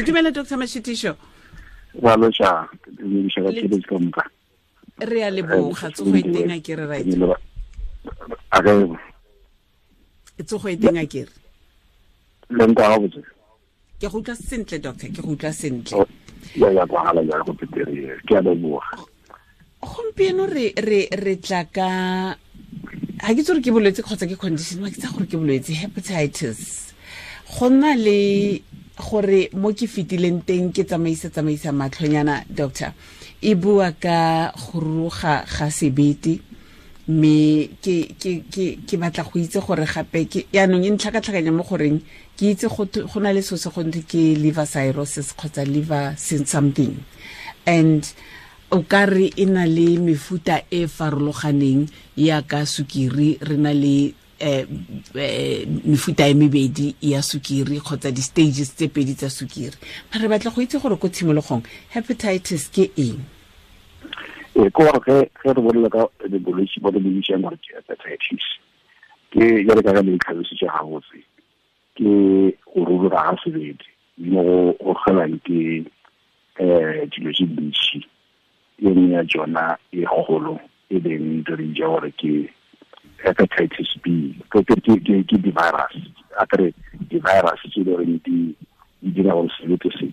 Dumela Dr Mashitišo. Wa loša, dumediša ba tšheletse ka moka. Re a leboga, tsogo e teng a kere right. A ge tsogo e teng a kere. Le nka ga botse. Ke go utlwa sentle doctor, ke go utlwa sentle. Ya ya kwagala ya go petere, ke a leboga. Gompieno re tla ka ha ke tsore ke bolwetse kgotsa ke condition, ma ke tsa gore ke bolwetse hepatitis. Go nna le gore mo ke fetileng teng ke tsamaisa matlhonyana doctor, e bua ka go ruruga ga sebete, mme ke batla go itse gore gape ke yaanong e ntlhakatlhakanya mo goreng ke itse go na le so se go ntwe ke liver cirrhosis kgotsa liver something, and o ka re e na le mefuta e farologaneng ya ka sukiri, re na le mefuta e mebedi ya sukiri kgotsa di-stages tse pedi tsa sukiri. Mara re batla go itse gore ko tshimologong hepatitis ke eng? Ke gore ge re bolela ka bolwetse bo re bo bitsang gore ke hepatitis, ke jale ka le tlhalositse gabotse, ke go ruruga ga sebete mo go kgelang ke dilo tse dintši. E nngwe ya tsona e kgolo e leng re bitsa gore ke hepatitis B, ke di-virus, a kere di-virus tse e le goreng di dira gore sebete se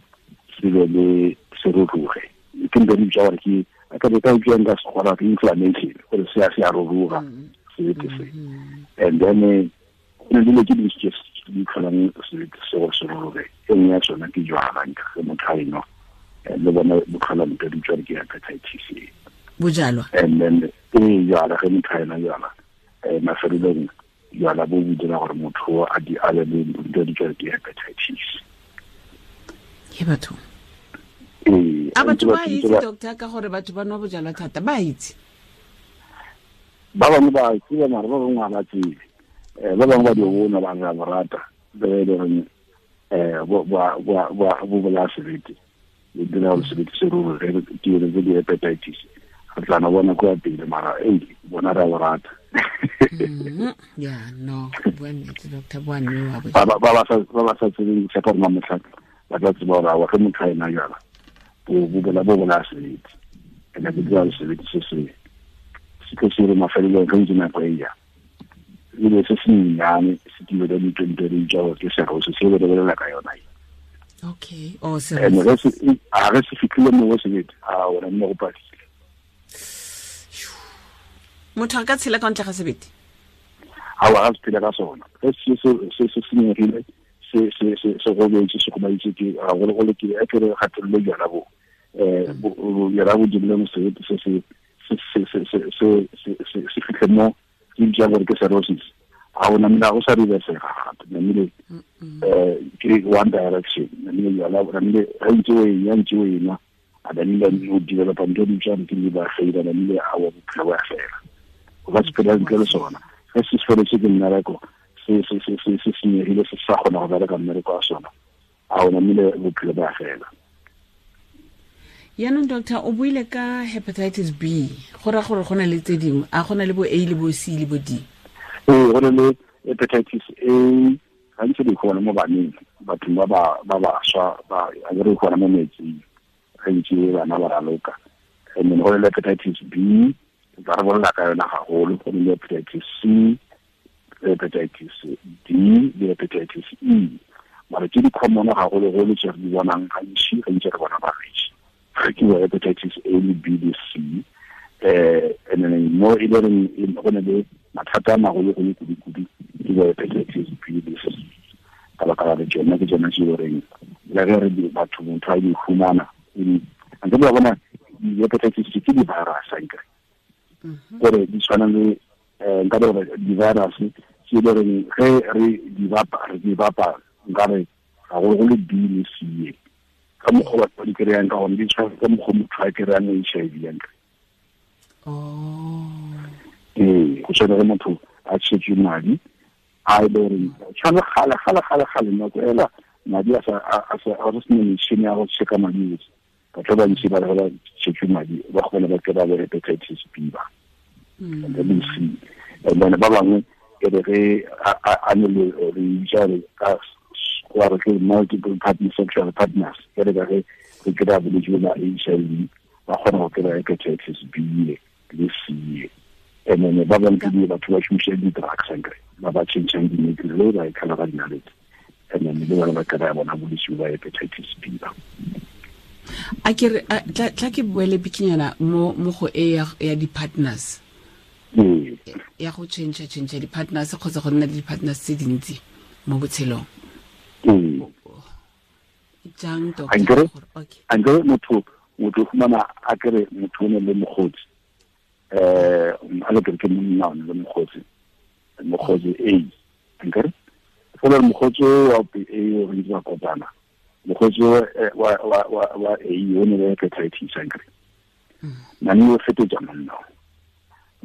se be le se ruruge. Ke ntho re bitsa gore ke a ka ka utlwang ka sekgora ke inflammation, gore se a ruruga sebete se. And then go na le dilo tse dintsi tse di tlholang sebete se gore se ruruge. E nngwe ya tsona ke jwala, ge motho a e nwa le bona bo tlhola ntho di tswa ke hepatitis E. Bojalwa. And then e jwala ge motho a enwa jwala, mafelelong jwala bo bo dira gore motho a di ale le ntho di tswa ke hepatitis. Ke batho. A batho ba itse doctor ka gore batho ba nwa bojalwa thata, ba itse? Ba bangwe ba tseba, mara ba bangwe ga ba tsebe. Ba bangwe ba di bona ba re ba rata, ba e le goreng bo bolaya sebete. Le dira gore sebete se ruruge, ke yone tse di hepatitis. Re tla no bona kwa pele, mara bona re a bo rata. Ya, no, bua nnete doctor, bua nnete. Ba ba sa tsebeng, ke tshepa gore mamotlha ba tla tseba gore aowa ge motho a ena jwala, bo bolaya sebete. And-e bo dira gore sebete se se tlo se re mafelelong ge ntse nako e ya. Ebile se se nnyane se tile ka ditwente di tsa gore ke cirrhosis, se re bolela ka yona e. Okay. Oh, And cirrhosis. ge se fitlhile mo go sebete, a ona nne go padile. Motho a ka tshela ka ntle ga sebete? Aowa, ga se phele ka sona. Ge se senyegile, se gobetse, se gobaditse ke, gagologolo ke, a ke re kgatelelo jwala bo. Jwala bo dirile mo sebete se se fitlhe mo ke bitsa gore ke cirrhosis. Ha ona mna go sa reversega gape, namile, ke one direction. Namile jwala, namile ge ntse o e ya, ntse o e nwa, a namile o developa ntho di bitswang ke liver failure, namile a wa bophelo bo a fela. O ka se phela ntle le sona. Ge se feletse ke mmereko, se senyegile, se sa kgona go bereka mmereko wa sona, a o namile bophelo bo a fela. Yaanong doctor, o buile ka hepatitis B, go raya gore go na le tse dingwe, a go na le bo A le bo C le bo D? Ee, go na le hepatitis A, gantsi di gona mo baneng, bathong ba bašwa, a ke re gona mo metsing, gantsi bana ba raloka. And then go na le hepatitis B, ba re bolela ka yona gagolo, go na le hepatitis C, hepatitis D le hepatitis E. Mara tse di common gagologolo tse re di bonang gantsi, gantsi re bona balwetse. Ke bo hepatitis A le B le C. And then mo e le reng go na le mathata a magologolo kudu-kudu ke bo hepatitis B le C. Ka baka la tsona ke tsona tse e leng le ge re di batho motho a di humana, ntse ba bona di-hepatitis ke di-virus ankere. Gore di tshwana le, nka re gore di-virus tse e le reng ge re di bapa, re di bapa nka re gagologolo B le C. Ka mokgwa batho ba di kry-ang ka gone, di tshwana ka mokgwa motho a kry-ang HIV ankere. Ee, go tshwana le motho a tshetswe madi, a e le goreng tshwana gale, gale, gale, gale, nako ela madi a sa, a sa, a go sena metšhini ya go check-a madi otlhe. Batho ba bantsi ba re ba tshetswe madi, ba kgone ba kry-a bo hepatitis B ba. And then C. And then ba bangwe e re ge a ne le re bitsa gore ka Go re ke multiple partner sexual partners ke re ka ge re kry-a bolwetse ba HIV ba kgona go kry-a hepatitis B le C. And then ba bangwe ke batho ba šomiša di-drugs ankere ba ba changeng di-needle le ba e kgala ka dinalete, and then le bona ba kry-a bona bolwetse ba hepatitis B ba. A ke re tla ke boele bikinyana mo go e ya di-partners ya go change di-partners kgotsa go nna le di-partners tse dintsi mo botshelong. Jang doctor? Ankere motho fumana a kere motho o ne le mokgotsi a le kere ke monna o ne le mokgotsi A ankere fela mokgotsi wa A o ntse ba kopana mokgotsi wa A o ne le hepatitis ankere nane o fetotsa monna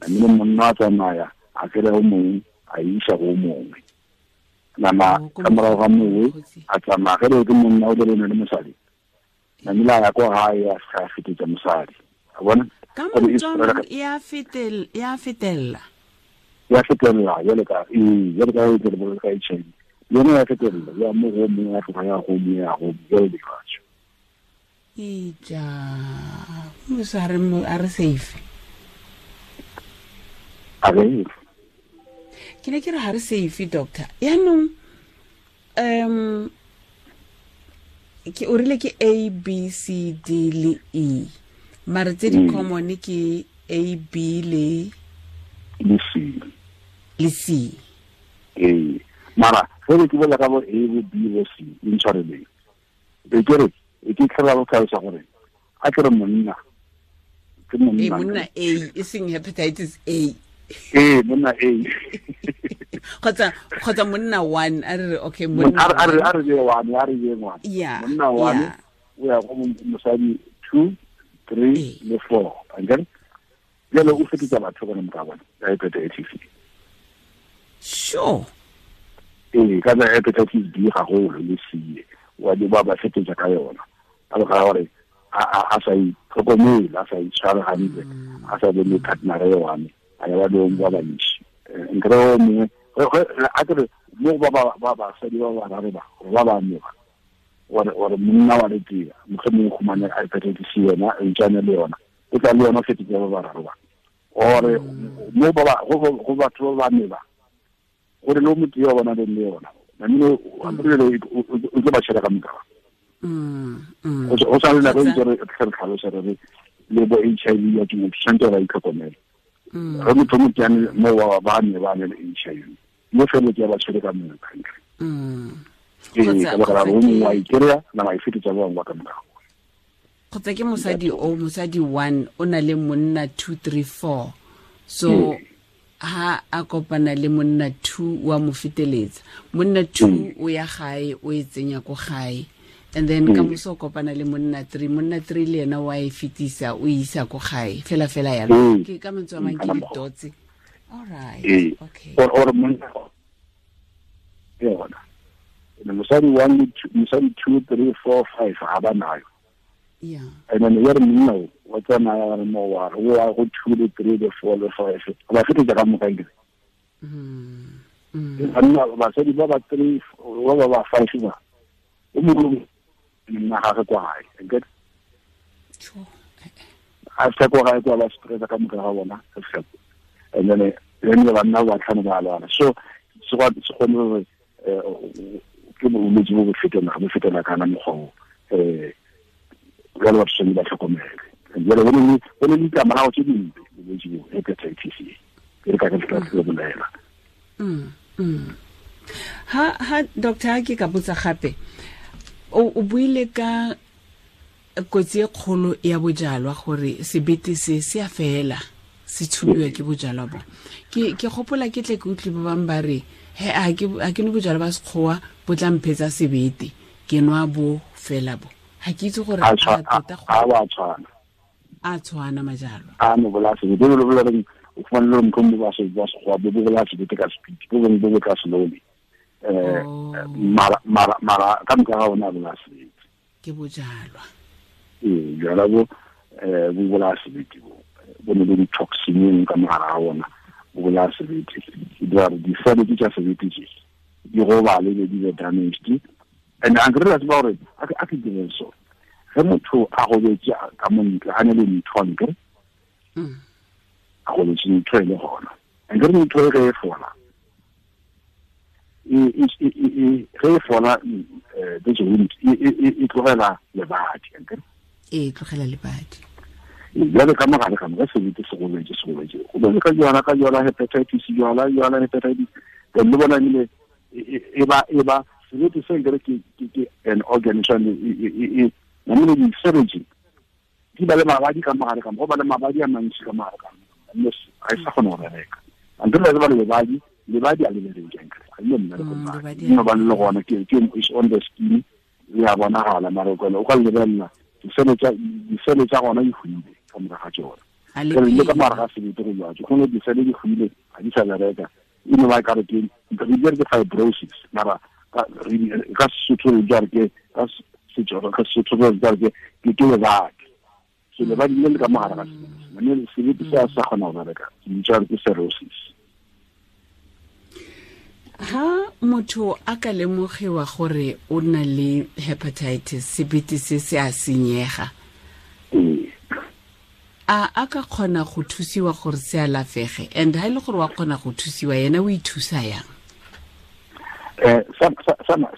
nane monna a tsamaya a kere o mongwe a isa go mongwe nama ka morago ga mongwe a tsamaya ge le ke monna o le le mosadi namile a ya ko gae a sa fetetsa mosadi a bona ka motswang ya fetella jale ka jale ka e tle ka HIV yone ya fetella ya mo go mongwe ya tloga ya go mongwe ya go jale lefatše ija mosa a re safe a re ke ne ke re ga re safe doctor yaanong ke o rile ke A B C D le E mare tse di common ke A B le C le C. Ee mara ge re ke bolela ka bo A bo B bo C intshwareleng e ke re e ke tlhola go tlhalosa gore a ke re monna ke monna monna A e seng hepatitis A. Ee monna A kgotsa monna one a re okay monna a re one a re one monna one o ya go mosadi 2 3 le 4 ankere jalo o fetisa batho bona moka bona ka hepatitis C. Sure. Ee ka hepatitis B gagolo le C wa di ba ba fetisa ka yona ka ga gore a sa itlhokomele a sa itshware hantle a sa be le partner e one a ya ba le ba bantši nkere o mongwe a kere mo ba ba basadi ba bararo ba ba ba ne ba gore monna wa le tee mohlomongwe o humane hepatitis C yona e ntšane le yona o tla le yona fetisa ba bararo ba ore mo ba go batho ba bane ba gore le motho yo bona le yona namile o tlo ba tšhela ka moka. O sa le nako ntse re tlhalosa re le bo HIV ya ke motho tshwanetse ba itlhokomele re motho mo tsane mo wa ba ne ba ne le HIV mo fele ke ba tshwere ka moka ntle. Ee ka baka la o mongwe wa ikry-a nama e fetisa ba bangwe ba ka morago. Kgotsa ke mosadi o mosadi 1 o na le monna 2 3 4 so ha a kopana le monna 2 wa mo feteletsa monna 2 o ya gae o e tsenya ko gae and then ka moso kopana le monna 3 monna 3 le yena wa e fetisa o isa ko gae fela fela yalo ke ka mantswe a mang ke di-dots. All right, okay. Or monna yona mosadi 1 mosadi 2 3 4 5 ga ba nayo. Yeah. And then you're no, what's an hour more? Who are 2 3 4 5? Ba fetisa ka moka ke. Banna basadi ba ba 3 ba ba 5 ba. O mongwe nna ga re kwa gae. Get. A se kwa gae kwa ba stress ka moka ga bona. And then banna ba tlhano ba lwana. So se go se ke bolwetse bo bo fetela kana mokgwa o jalo batho tshwanetse ba tlhokomele jalo go ne le ditlamorago tse dimpe bolwetse bo hepatitis E ke re ka ke tla tlo bolela. Ha doctor ke ka botsa gape o buile ka kotsi e kgolo ya bojalwa gore sebete se se a fela se tshubiwa ke bojalwa bo ke gopola ke tle ke utlwe ba bang ba re he a ke no bojalwa ba sekgowa bo tla mphetsa sebete ke nwa bo fela bo ha ke itse gore a tota go a tshwana majalwa a no bola sebete lo bola re o fumane le mkhombo ba se ba sekgowa bo bola sebete ka speed bo bong bo tla slowly mara ka moka ga ona bola sebete ke bojalwa. Ee jala bo bo bola sebete bo ne le di-toxin ka mogare ga ona bo bolaya sebete di dira gore di-cell tsa sebete tse di gobale be di be damaged And a nkere tseba gore a ke dire so ge motho a gobetse ka montle a ne le ntho nkere a gobetse ntho e le gona nkere ntho e ge e fola ge e fola this wound e tlogela lebadi nkere e tlogela lebadi jale ka mogare ka moka sebete se gobetse se gobetse go bone ka jwala ka jwala hepatitis jwala jwala hepatitis then le bona ebile e ba sebete se nkere ke an organ e namile di-surgery di ba le mabadi ka mogare ka mo go ba le mabadi a mantši ka mogare ka mo ga e sa kgone go bereka antse le ba le lebadi lebadi a le bereke nkere ga ile mmereko no ba le gona ke is on the skin le a bonagala mara o ka lebelela disele tsa gona di hwile ka morago ga tsona le ka morago ga sebete go jwatse gone disele di hwile ga di sa bereka e no ba kare ke re ke fibrosis mara ka Sesotho re jare ke ka Setswana ka Sesotho re jare ke ke lebadi so lebadi le le ka mogare ga sebete mme sebete se a sa kgona go bereka ke bitsa ke cirrhosis. Ha motho a ka lemogiwa gore o na le hepatitis sebete se se a senyega a ka kgona go thusiwa gore se alafege and ha ile gore wa kgona go thusiwa yena o ithusa yang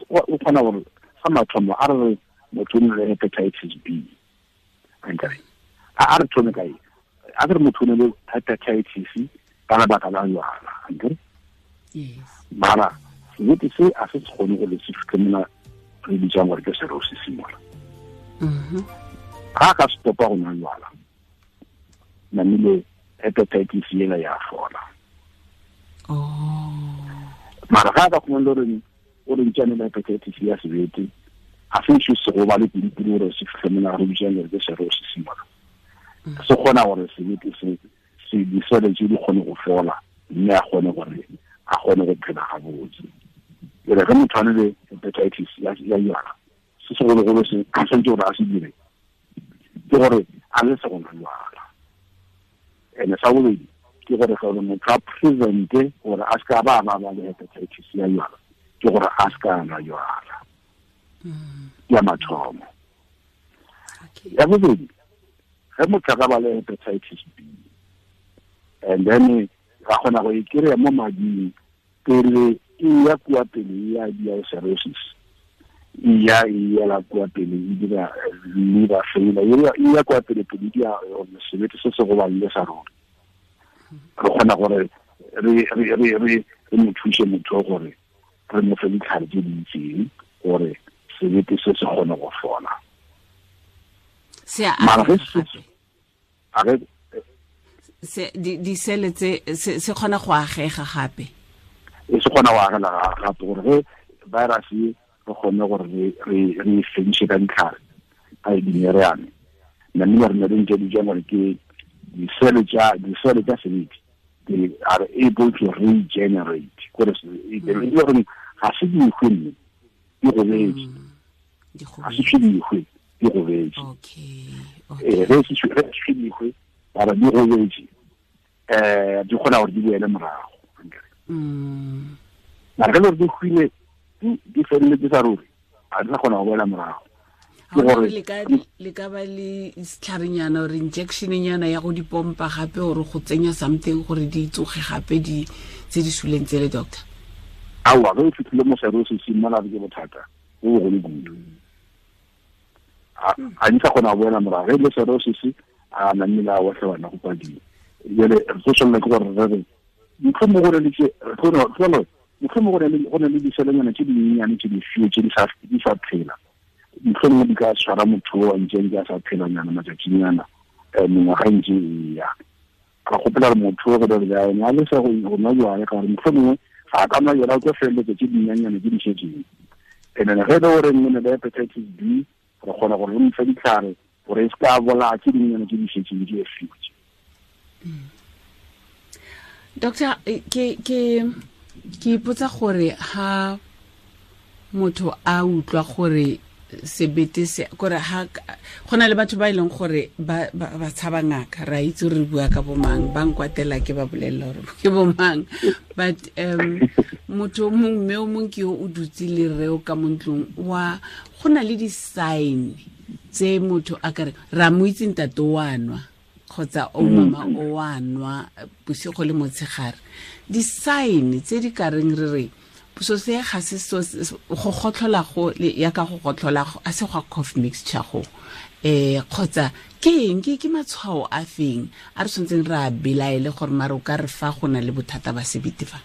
o kgona gore sa mathomo a re motho o na le hepatitis B ankare a re thome kae a re motho o na le hepatitis ka lebaka la jwala ankare yes mara sebete se a se kgone go le se fitlhe re bitsang gore ke cirrhosis mola ga ka stopa go nwa jwala namile hepatitis yela ya fola mara ga ka khona le o re ntšane le hepatitis ya sebete a se se se go ba le pidipidi gore se fitlhe mola re bitsang gore ke cirrhosis mola se kgona gore sebete se se disele tse di kgone go fola mme a kgone gore a kgone go phela gabotse ere ge motho a ne le hepatitis ya jwala se segologolo se a santse gore a se dire ke gore a le se go nwa jwala ene sa bobedi ke gore gore motho a prevente gore a se ka ba ba le hepatitis ya jwala ke gore a se ka nwa jwala ya mathomo. Ya bobedi ge motho a ka ba le hepatitis B and then ra kgona go e kry-a mo mading pele e ya kua pele ya dia cirrhosis e ya e yela kua pele e dira liver failure e ya kua pele pele dia sebete se se goballe sa rona re kgona gore re mo thuse motho gore re mo fe ditlhare tse di itseng gore sebete se se kgone go fola se a se di sele tse se kgona go agega gape e se kgona go agela gape gore ge virus e re kgone gore re fediše ka ditlhare a e dimereane namile re ne re ntse di jang gore ke disele tsa sebete they are able to regenerate gore e gore ga se dikgwe mme di gobetse ga se dikgwe di gobetse ge se dikgwe bara di gobetse di kgona gore di boele morago mara ge le gore di hwile di feleletse sa ruri a di sa kgona go boela morago ke gore le ka ba le setlharenyana or injectionnyana ya go di pompa gape gore go tsenya something gore di tsoge gape di tse di suleng tsele doctor aowa ge o fitlhile mo cirrhosis mola ke bothata bo bogolo kudu a di sa kgona go boela morago ge le cirrhosis a namile a otlhe bana go padile jale re tlo tshwanela ke gore re re mohlomongwe go ne go ne le diselenyana tse dinyenyane tse di fio tse di sa phela mohlomongwe di ka tshwara motho o a ntseng a sa phelanyana matšatšinyana mengwaga e ntse e ya ra gopela gore motho o go dere ene a lesa go nwa jwale ka gore mohlomongwe ga a ka nwa jwala o tlo feleletsa tse dinyenyane tse di šetseng and then ge e le gore nne ne le hepatitis B re kgona gore re mo fe ditlhare gore e se ka bolaya tse dinyenyane tse di šetseng di e fiwe. Doctor ke ipotsa gore ha motho a utlwa gore Sebete se kore ha gona le batho ba ileng gore ba ba tshaba ngaka ra itse re bua ka bomang ba nkwatela ke ba bolella gore ke bomang but motho mong mme o mong ke yo o dutse le reo ka mo ntlong wa gona le di sign tse motho a kare ra mo itse ntate wa nwa kgotsa o mama o wa nwa bosigo le motshegare di sign tse di ka reng re re so se ga se so go gotlhola go ya ka go gotlhola a se go cough mixture go kgotsa ke eng ke matshwao a feng a re tshwantseng re a belaele gore mare o ka re fa go na le bothata ba sebete fa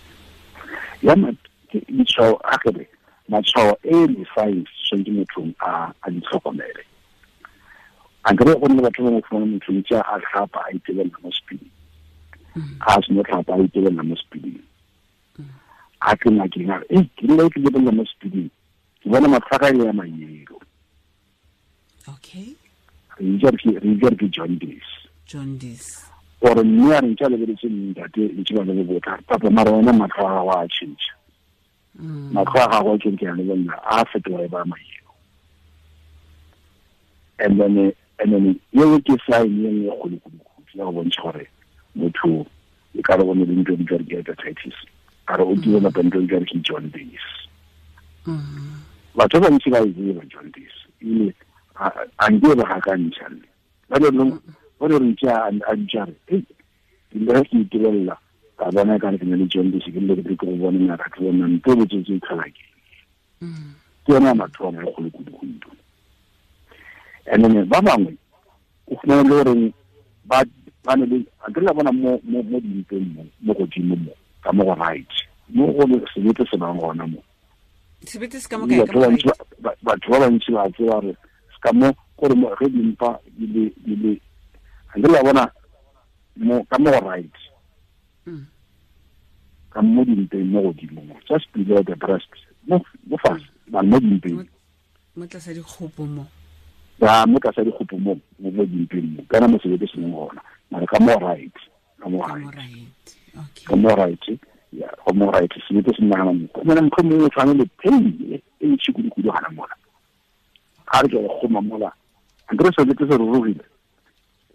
ya matshwao a kere matshwao e le signs tshwanetse motho a di tlhokomele a nkere go nne batho ba mo fumana motho ntse a tlhapa a itebelela mo sepiding a seno tlhapa a itebelela mo sepiding a ke ngakeng a re ke nna ke lebelela mo sepiding ke bona matlhaka e ya mayelo. Okay, re itse re ke jaundice or mme a re ntse a lebeletse ntate ntse ba le botla papa mara wena matlho a gago a tšhentšha matlho a gago a ke ke a lebelela a fetoga e ba mayelo. And then yeo ke sign e nngwe kgolo-kgolo ya go bontšha gore motho e ka re bone le ntho di ke hepatitis a re o developa ntho di ke jaundice. Batho ba bantsi ba e tseba jaundice ebile a nke ba gakantšha nne ba le re ntse a ntšare ke le ke itebelela ka bona ka re ke na le jaundice ke le ke go bona ngaka ke bona nto botsotsi e tlhola ke ke yona mathomo e kgolo kudu-kudu. And then ba bangwe o fumana le goreng ba ne le a ke la bona mo dimpeng mo godimo mo ka mo go right mo go sebete se bang gona mo sebete se ka mo kae ka mo batho ba bantsi ba tseba re se ka mo gore mo ge dimpa di le a ke la bona mo ka mo go right ka mo dimpeng mo godimo mo just below the breast mo fase ba mo dimpeng mo tlasa dikgopo mo ya mo tlasa dikgopo mo mo dimpeng mo kana mo sebete se leng gona mara ka mo right ka mo right okay ka mo right ya ka mo right sebete se nna mo go na motho mongwe o tshwane le pain e ntši kudu-kudu gana mola ga re ke go goma mola a nkere sebete se rurugile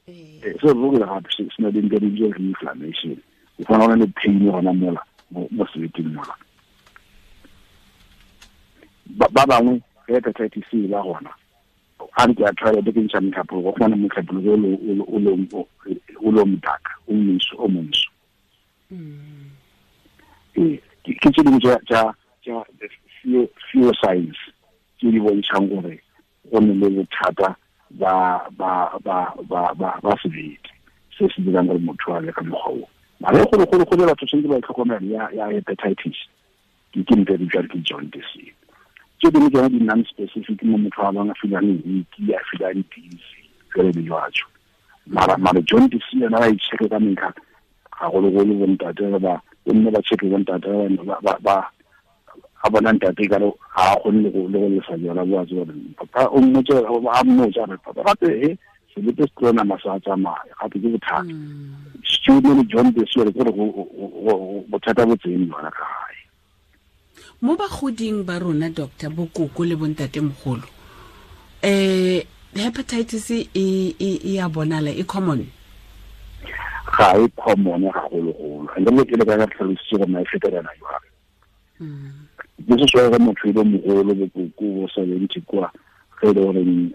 se rurugile gape se na le ntho di inflammation o fana go na le pain gona mola mo sebeteng mola. Ba bangwe ge hepatitis e ba gona a re ke a try ke ntšha motlhapologo go fumana motlhapologo o lo motaka o montsho o montsho. Ke tse dingwe tša few signs tse di bontšhang gore go ne le bothata ba sebete se se dirang gore motho a le ka mokgwa o mare golo batho tshwanetse ba itlhokomele ya hepatitis ke ntho e bitswang ke jaundice. Tse dingwe tsona di non-specific mo motho a bang a feelang weak a feelang dizzy jalo le jwalo mara jaundice yona ba e check-e ka metlha gagologolo bontate ba bomme ba check-e bontate ba a bona ntate ka re ga a kgone le go lesa jala bo a tseba papa o mmotse a mmotsa re papa gape sebete se tlo nama sa tsamaya gape ke bothata student le jaundice gore ke gore bothata bo tseng yona ka gae. Mo bagoding ba rona doctor bokoko le bontate mogolo hepatitis e ya bonala e common ga e common gagologolo and le ke le ka tlhalositse gore na e fetelana jwang. This is why motho e le mogolo bokoko bo 70 kwa ge e le goreng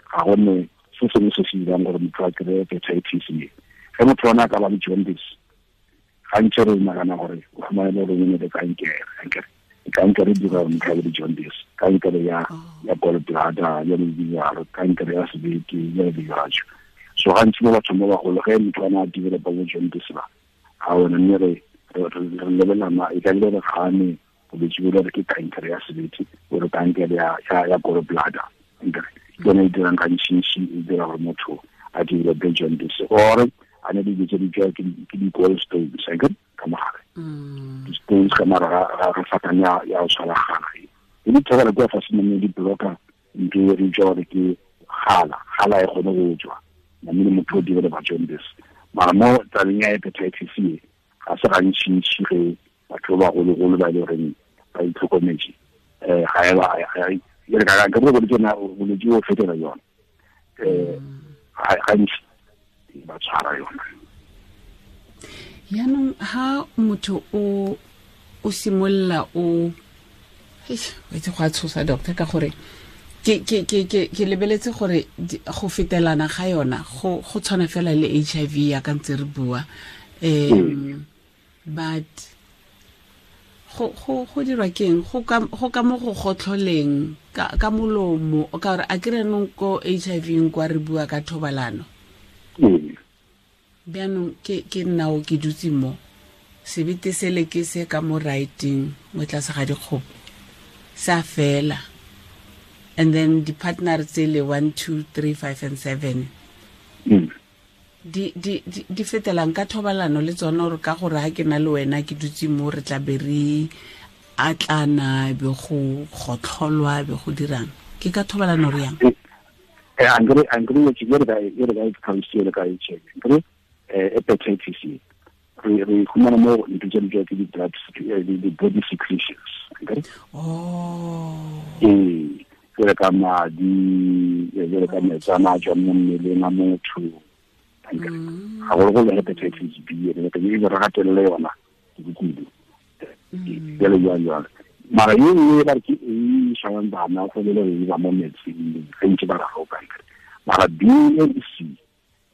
ga gone se sengwe se se dirang gore motho a kry-e hepatitis e ge motho ona a ka ba le jaundice gantsi re nagana gore o fumane le gore o ne le kankere kankere e dira gore motho a be le jaundice kankere ya gallbladder ya le dijalo kankere ya sebete ya le dijalo. So gantsi mo bathong ba bagolo ge motho ana a developa bo jaundice ba ga ona mme re lebelela e ka le re gane bolwetse bo re ke kankere ya sebete or kankere ya gallbladder ke yone e dirang gantsi e dira gore motho a develope jaundice or a ne di tse di tswa ke di gallstones ka mogare di-stones ka mara ga fatane ya go tshwara gala e di thobela kua fase mo di blocker ntho e re utlwa gore ke gala e kgone go tswa namile motho o developa jaundice. Mara mo tabeng ya hepatitis e ga se gantšintši ge batho ba bagologolo ba e le goreng ba itlhokometse ga Jale ka ka bo ke na bolwetse bo fetela yona. Gantsi ba tshwara yona. Yaanong ha motho o simolola o itse go a tshosa doctor ka gore ke lebeletse gore go fetelana ga yona go tshwana fela le HIV ya ka ntse re bua, but go dirwa keng go ka mo go gotlholeng ka molomo ka gore a kere nong ko HIV kwa re bua ka thobalano. Bjaanong ke nnao ke dutse mo sebete sele ke se ka mo writing mo tlase ga dikgopo sa fela, and then di-partner tsele 1 2 3 5 and 7 di fetelang ka thobalano le tsone, gore ka gore ha ke na le wena ke dutse mo re tla be re atlana be go gotlholwa be go dirang ke ka thobalano re yang. Angre ke re ka ka HIV hepatitis C re khumana mo ntho tse di ke di-blood di-body secretions. Oh. Jwale ka madi, jwale ka metsana a tswang mo mmeleng a motho. Gagologolo hepatitis B re ka e re gatelele yona kudu. Jalo jalo jalo. Mara ye nngwe ba re ke e shawang bana go le le ba mo metsing ge ntse ba raroka. Mara B and C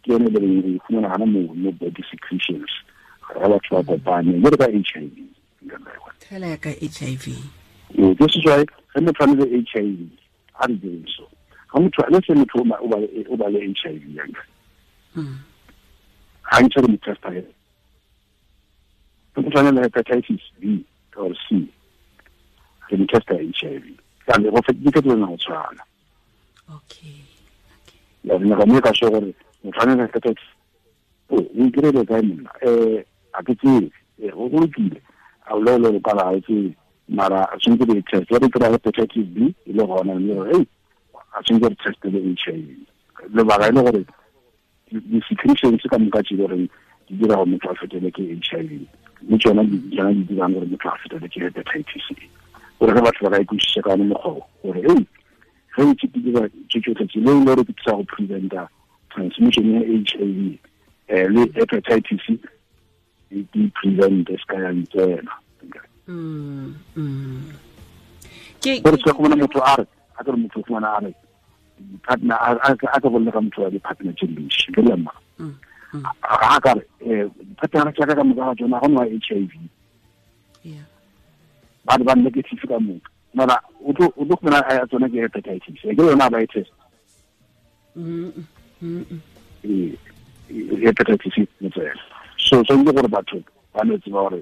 ke yone le re khumana gana mo body secretions. Ga batho ba kopane jalo ka HIV. Fela ya ka HIV. This is why ge motho a le HIV a re direng so. Ga motho le se motho o ba le HIV yang. Ga ntse re mo testa he. Motho a le hepatitis B or C. Re mo testa HIV. Ka le go fetile ke tsona go tshwana. Okay. Ya re ga mo ka so gore motho a le hepatitis o ikirele kae monna a ke tsebe go lokile a o le ka la itse mara a tshwanetse re test re kry hepatitis B e le gona mme re hey a tshwanetse re test le HIV lebaka e le gore di-secretions ka moka tse goreng di dira gore motho a fetele ke HIV le tsona di dirang gore motho a fetele ke hepatitis E gore ge batho ba ka ikwešiša ka one mokgwa gore hey ge ntse ke dira tse tsotlhe tse le e le gore ke thusa go preventa transmission ya HIV le hepatitis di prevent se ka ya ntsena. Ke gore se go bona motho a re a ke motho go bona a re partner a ka bolela ka motho wa di-partner tse dintsi ke le mma a ka re partner tsa ka moka ga tsona go nwa HIV ba ba negative ka moka mara o tlo go bona a tsona ke hepatitis ke yona ba e test hepatitis ne tsela so tshwanetse gore batho ba no tseba gore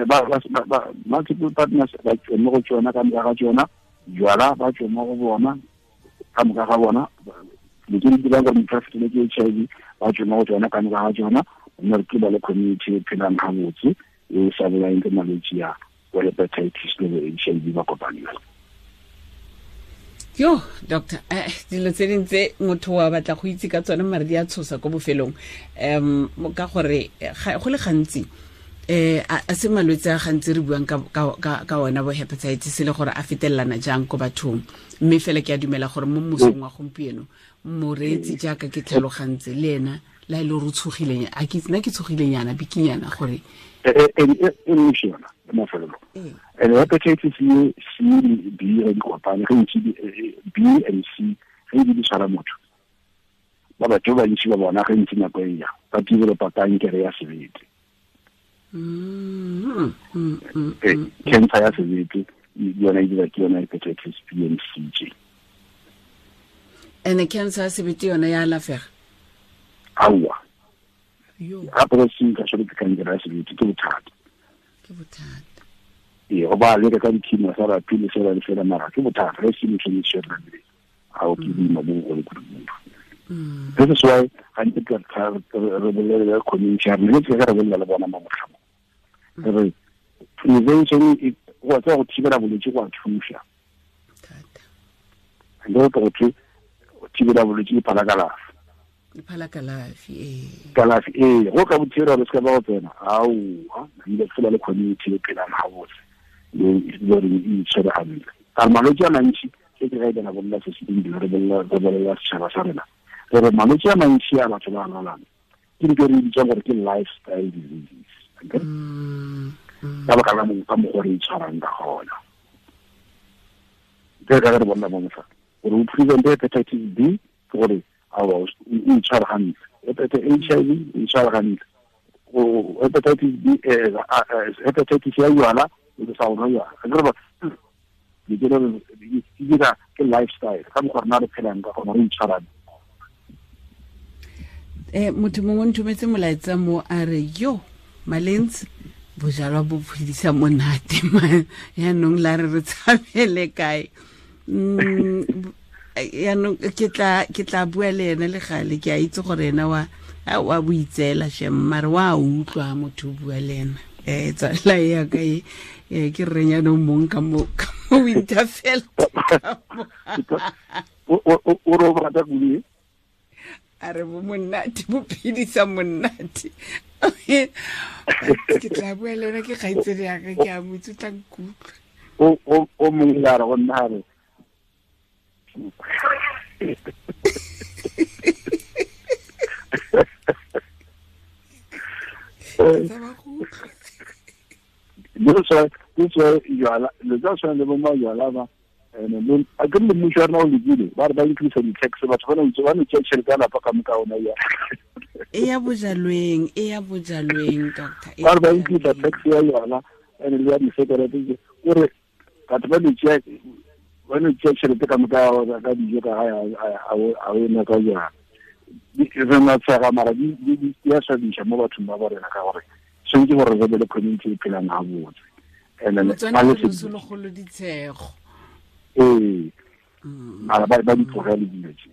ba multiple partners ba tswe mo go tsona ka moka ga tsona jwala ba tswe mo go bona ka moka ga bona le ke di dirang gore motho a fetele ke HIV ba tswe mo go tsona ka moka ga tsona mme re ba le community e phelang gabotse e sa bolaeng ke malwetse ya bo hepatitis le bo HIV ba kopaneng. Yo, doctor, dilo tse ding tse motho wa batla go itse ka tsone mare di a tshosa ko bofelong. Ka gore go le gantsi a se malwetse a gantsi re buang ka ona bo hepatitis le gore a fetelelana jang ko bathong. Mme fela ke a dumela gore mo mosong wa gompieno moreetsi jaaka ke tlhalogantse le ena la e le gore o tshogileng a ke nna ke tshogilenyana bikinyana gore e ntši yona mafelelo. And hepatitis C le B re di kopane ge ntši B and C ge di tshwara motho ba batho ba bantši ba bona ge ntši nako e ya ba developa kankere ya sebete. Cancer ya sebete yona e dira ke yona hepatitis B and C tše. And cancer ya sebete yona ya alafega? Aowa. Gape go se ka tshwere ke kankere ya sebete ke bothata. Ke bothata. Ee, go ba leka ka di-chemotherapy le fela le fela mara ke bothata ge se motho e tshwere ga o ke boima bo bogolo kudu-kudu. This is why gantsi re bolele le community ya rena, ke re bolela le bona mo motlhamong. Re prevention go tswa go thibela bolwetse go a thuša. Thata. Go thibela bolwetse ke phala kalafi. Phala kalafi ee. Kalafi ee, go ka bothibela re se ka ba go tsena aowa ile fela le community e phelang gabotse le gore e itshwere gantle. Ka malwetse a mantši e ke ga e bana bolela se se dingwe re bolela setšhaba sa rena re re malwetse a mantši a batho ba lwalang ke dilo re bitsang gore ke lifestyle diseases ka baka la ka mokgwa re itshwarang ka gona ke ka re bona mo motlha gore o prevent hepatitis B ke gore awa o itshware gantle hepatitis HIV o itshware gantle hepatitis B hepatitis ya jwala o sa o nwa jwala di dira ke lifestyle ka mokgwa rena re phelang ka gona re itshwarang. Motho mongwe o nthometse molaetsa mo a re yo Malentsi bojalwa bo phedisa monate yaanong la re re tshabele kae. Yaanong ke tla bua le ene le gale ke a itse gore ena wa boitseela shem mare wa utlwa motho o bua le ena. Tsala ya ka e ke reng yaanong mong ka mo Winterfell o re o rata kudu a re bo monate bo phedisa monate. Ke tla bua le ena ke kgaitsedi yaka ke a mo itse o tla nkutlwa. O mongwe a re go nna a re le bo majwala ba a ke le mmušo wa rena o lekile ba re ba increase di-tax batho ba no tšea tšhelete ya lapa ka moka ona ya e ya bojalweng doctor ba re ba increase tax ya yona and le ya disekerete kore batho ba no tšea tšhelete ka moka ka dijo ka gae a o ena ka jana re na tshega mara di a swabisa mo bathong ba rena ka gore tshwanetse gore re be le community e phelang gabotse. And then motswana ditshego ee mara ba di tlogele dilo tse.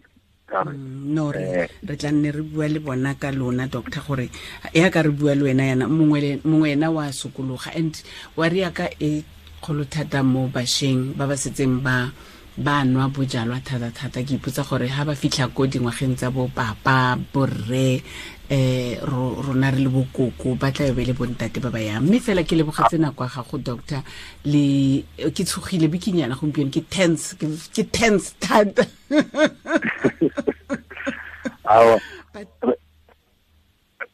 No re tla nne re bua le bona ka lona doctor gore ya ka re bua le wena yana mongwe ena wa sokologa and wa re ya ka e kgolo thata mo bašweng ba ba setseng ba nwa bojalwa thata-thata. Ke ipotsa gore ha ba fitlha ko dingwageng tsa bo papa borre rona re le bokoko ba tla be le bontate ba ba yang. Mme fela ke lebogetse nako ya gago doctor le ke tshogile bikinyana gompieno ke tense thata. Awa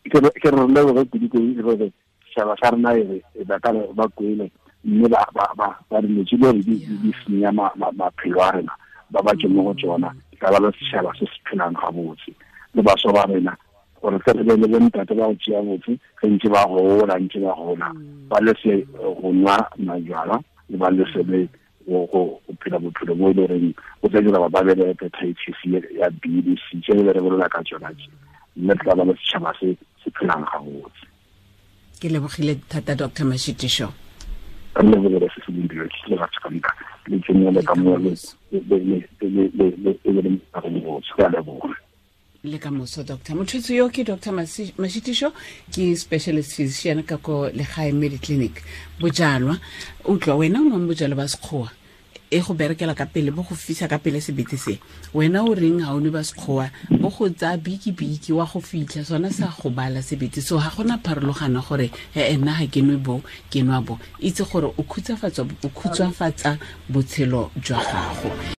ke re leboge kudu gore setšhaba sa rena e ba ka ba kwele mme ba dilo tse di di senya maphelo a rena ba ba tse mo go tsona ka ba le setšhaba se se phelang gabotse le bašwa ba rena gore tle re be le bontate ba go tšea botse ge ntse ba gola ba lese go nwa majwala le ba lese le go phela bophelo bo e le goreng o tla dira ba be le hepatitis ya B le C tse re bolela ka tsona tse mme tla ba le setšhaba se se phelang gabotse. Ke lebogile thata Dr. Mashitisho. Re lebogile se se dingwe ke le batho ka moka le tsenele ka mo le le le le ka moso doctor. Motho yo ke Dr. Mashitisho ke specialist physician ka ko Legae Mediclinic. Bojalwa utlwa wena o nwang bojalwa ba sekgowa e go berekela ka pele bo go fisa ka pele sebete se wena o reng ha o nwe ba sekgowa bo go tsaya biki-biki wa go fitlha sona sa go bala sebete so ga gona pharologano gore nna ga ke nwe bo ke nwa bo itse gore o khutshwafatsa botshelo jwa gago.